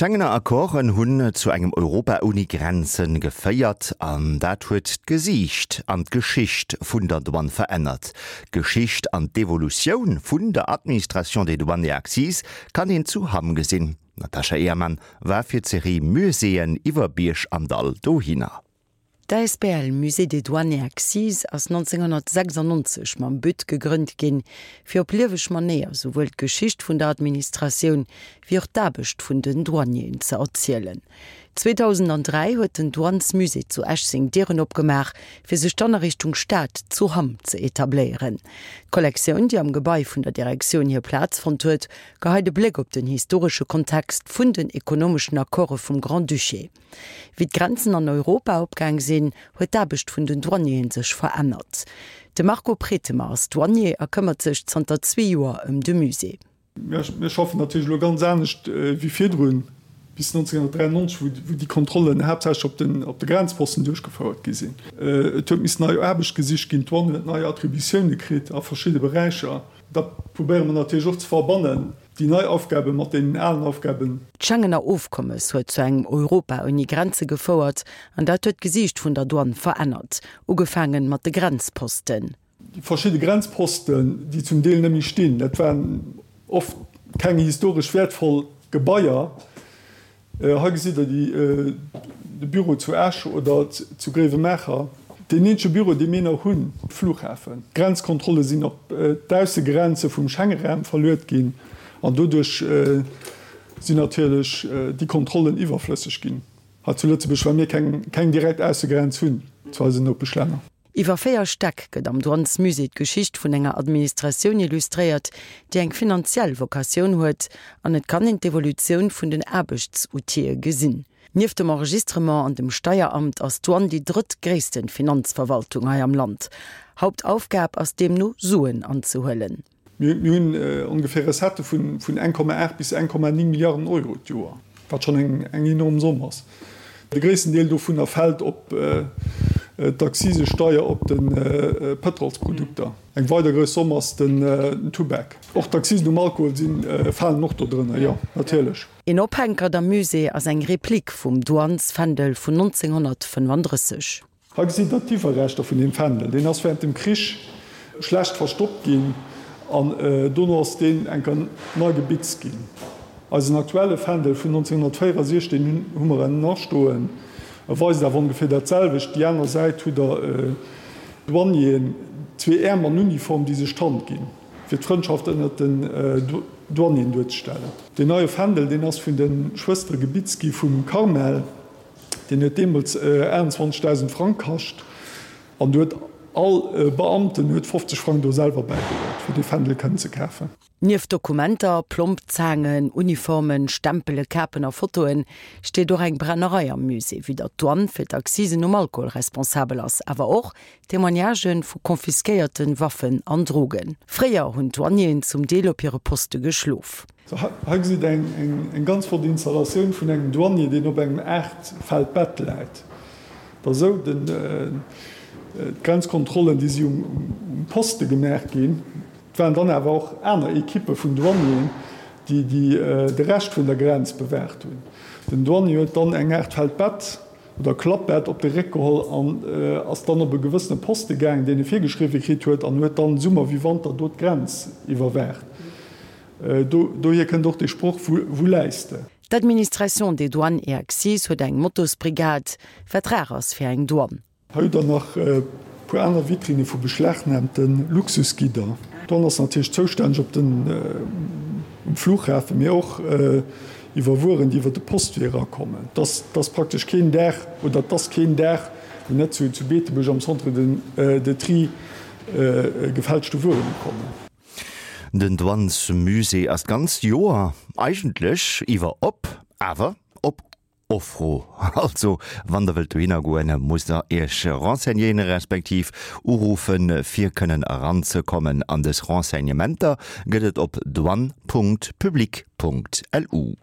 D'Schengener Accorden hunn zu engem Europa ouni Grenzen geféiert an dat huet d'Gesiicht an d'Geschicht vun der Douane verännert. D'Geschicht an d'Evolutioun vun der Administration des Douanes et Accises kann een zu Hamm gesinn. D'Natasha Ehrmann war fir d'Serie Muséeën iwwer Bierg an Dall dohinner. D'Asbl Musée des Douanes et Accises ass 1996 mam But gegrënnt ginn, fir op lieweg Manéier souwuel d'Geschicht vun der Administratioun wéi och d'Aarbecht vun den Douanieren ze erzielen. 2003 huet den Douanesmusée zu Esch seng Dieren opgemaach, fir sech dann a Richtung Stad zu Hamm ze etabléieren. D'Kollektioun, déi am Gebai vun der Direktioun hir Plaz fonnt huet, geheit e Bléck op den historesche Kontext vun den ekonomeschen Accorde vum Grand-Duché. Wéi d'Grenzen an Europa opgaang sinn, huet d'Aarbecht vun den Douanieren sech verännert. De Marco Pretemer ass Douanier a këmmert sech zanter zwee Joer ëm de Musée. Mir schaffen natierlech elo ganz anescht wéi virdrun, bis 1993, wou déi Kontrollen haaptsächlech op de Grenzposten duerchgefouert gi sinn. Et huet missen nei Aarbecht gesicht ginn, d'Douane huet nei Attributioune kritt a verschidde Beräicher. Dat probéiere mer natierlech och ze verbannen. Déi nei Aufgabe mat deenen alen Aufgaben. D'Schengener Ofkommes huet zu engem Europa ouni Grenze gefouert an dat huet d'Gesiicht vun der Douane verännert, ugefaangen mat de Grenzposten. Déi verschidde Grenzposten, déi zum Deel net méi stinn, dat waren oft keng historesch wäertvoll Gebaier. Hei gesitt Der de Büro zu Esch oder zu Gréiwemaacher, deen eenzege Büro, dee mir nach hunn, Flughafen. D'Grenzkontrolle sinn op d'Aussegrenze vum Schengeraum verluet ginn an doduerch sinn natierlech déi Kontrollen iwwerflësseg ginn hei zu Lëtzebuerg, well mir keng direkt Aussegrenz hunn zu eisen Nopeschlänner. Iwwer 4 Stäck gëtt am Douanesmusée d'Geschicht vun enger Administratioun illustréiert, déi eng finanziell Vocatioun huet, an et kann een d'Evolutioun vun den Aarbechtsoutile gesinn. Nieft dem Enregistrement an dem Steieramt ass d'Douane déi drëttgréissten Finanzverwaltung hei am Land. Hauptaufgab ass deemno Suen anzehuelen. Mir hunn ongeféier Recettë vun 1,8 bis 1,9 Milliarden Euro d'Joer, wat schonn eng enorm Somm ass. De gréissten Deel dovunner fält op d'Akzisesteier op de Pëtrolsprodukter. Eng weider grouss Somm ass den Tubak. Och d'Akzisen um Alkohol falen och do drënner, jo, natierlech. Een Ophänkert am Musée ass eng Replik vum Douanesfändel vun 1935. Hei gesitt der d'Iwwerreschter vun deem Fändel. Deen ass während dem Krich schlecht verstoppt ginn an dono ass deen eng Kéier nei gebitzt ginn. Eisen aktuelle Fändel vun 1964, deen hu mer ënnen astoen, e weist awer ongeféier dat selwecht. Déi aner Säit hutt der Douanieren, zwee Äerm an Uniform, déi sech d'Hand ginn, fir d'Frëndschaft ënnert den Douanieren duerzestellen. Deen neie Fändel, deen ass vun de Schwëstere gebitzt gi vum Carmel. Deen huet deemools 28.000 Frang kascht an do huet all Beamten huet 50 Frang do selwer bäigeluet, fir dee Fändel kënnen ze kafen. Nieft Dokumenter, Plombzaangen, Uniformen, Stempele, Kapen a Fotoen steet och eng Brennerei am Musée, wéi datt d'Douane fir d'Accisen um Alkohol responsabel ass, awer och Témoignagë vu confisquéierte Waffen an Drogen. Fréier hunn d'Douanieren zum Deel op hire Poste geschlof. Hei gesitt der eng ganz flott Installatioun vun engem Douanier, deen op engem Aachtfeld Bett läit. Et ass esou, d'Grenzkontrollen, déi si um Poste gemaach ginn. Et waren dann awer och aner Ekippe vun Douanieren, déi de Rescht vun der Grenz bewaacht hunn. Den Douanier huet dann eng Aart Feldbett oder Klappbett op de Réck geholl an ass dann op e gewëssene Poste gaangen, deen e virgeschriwwe kritt huet, an huet dann Summer wéi Wanter do d'Grenz iwwerwaacht. Dohier kënnt och dee Sproch, Wou läis de? D'Administration des Douanes et Accises huet eng Motosbrigade, wat rar ass fir eng Douane. Hei hutt der nach e puer aner Vitrinne vu beschlagnahmte Luxusgidder. D'Douane ass natierlech zoustänneg op den, um Flughafen, mee och iwwer Wueren, déi iwwer de Postwee erakommen. Et ass praktesch keen Dag, oder et ass keen Dag, wou net zu Beetebuerg am Centre de Tri gefälschte Wueren ukommen. Den Douanesmusée ass d'ganzt Joer eigentlech iwwer op, awer op Offro. Also wann der wëllt dohinner goen, musst der iech renseignéieren, respektiv uruffen, fir kënnen eranzekommen. An dës Renseignementer gëtt et op douane.public.lu.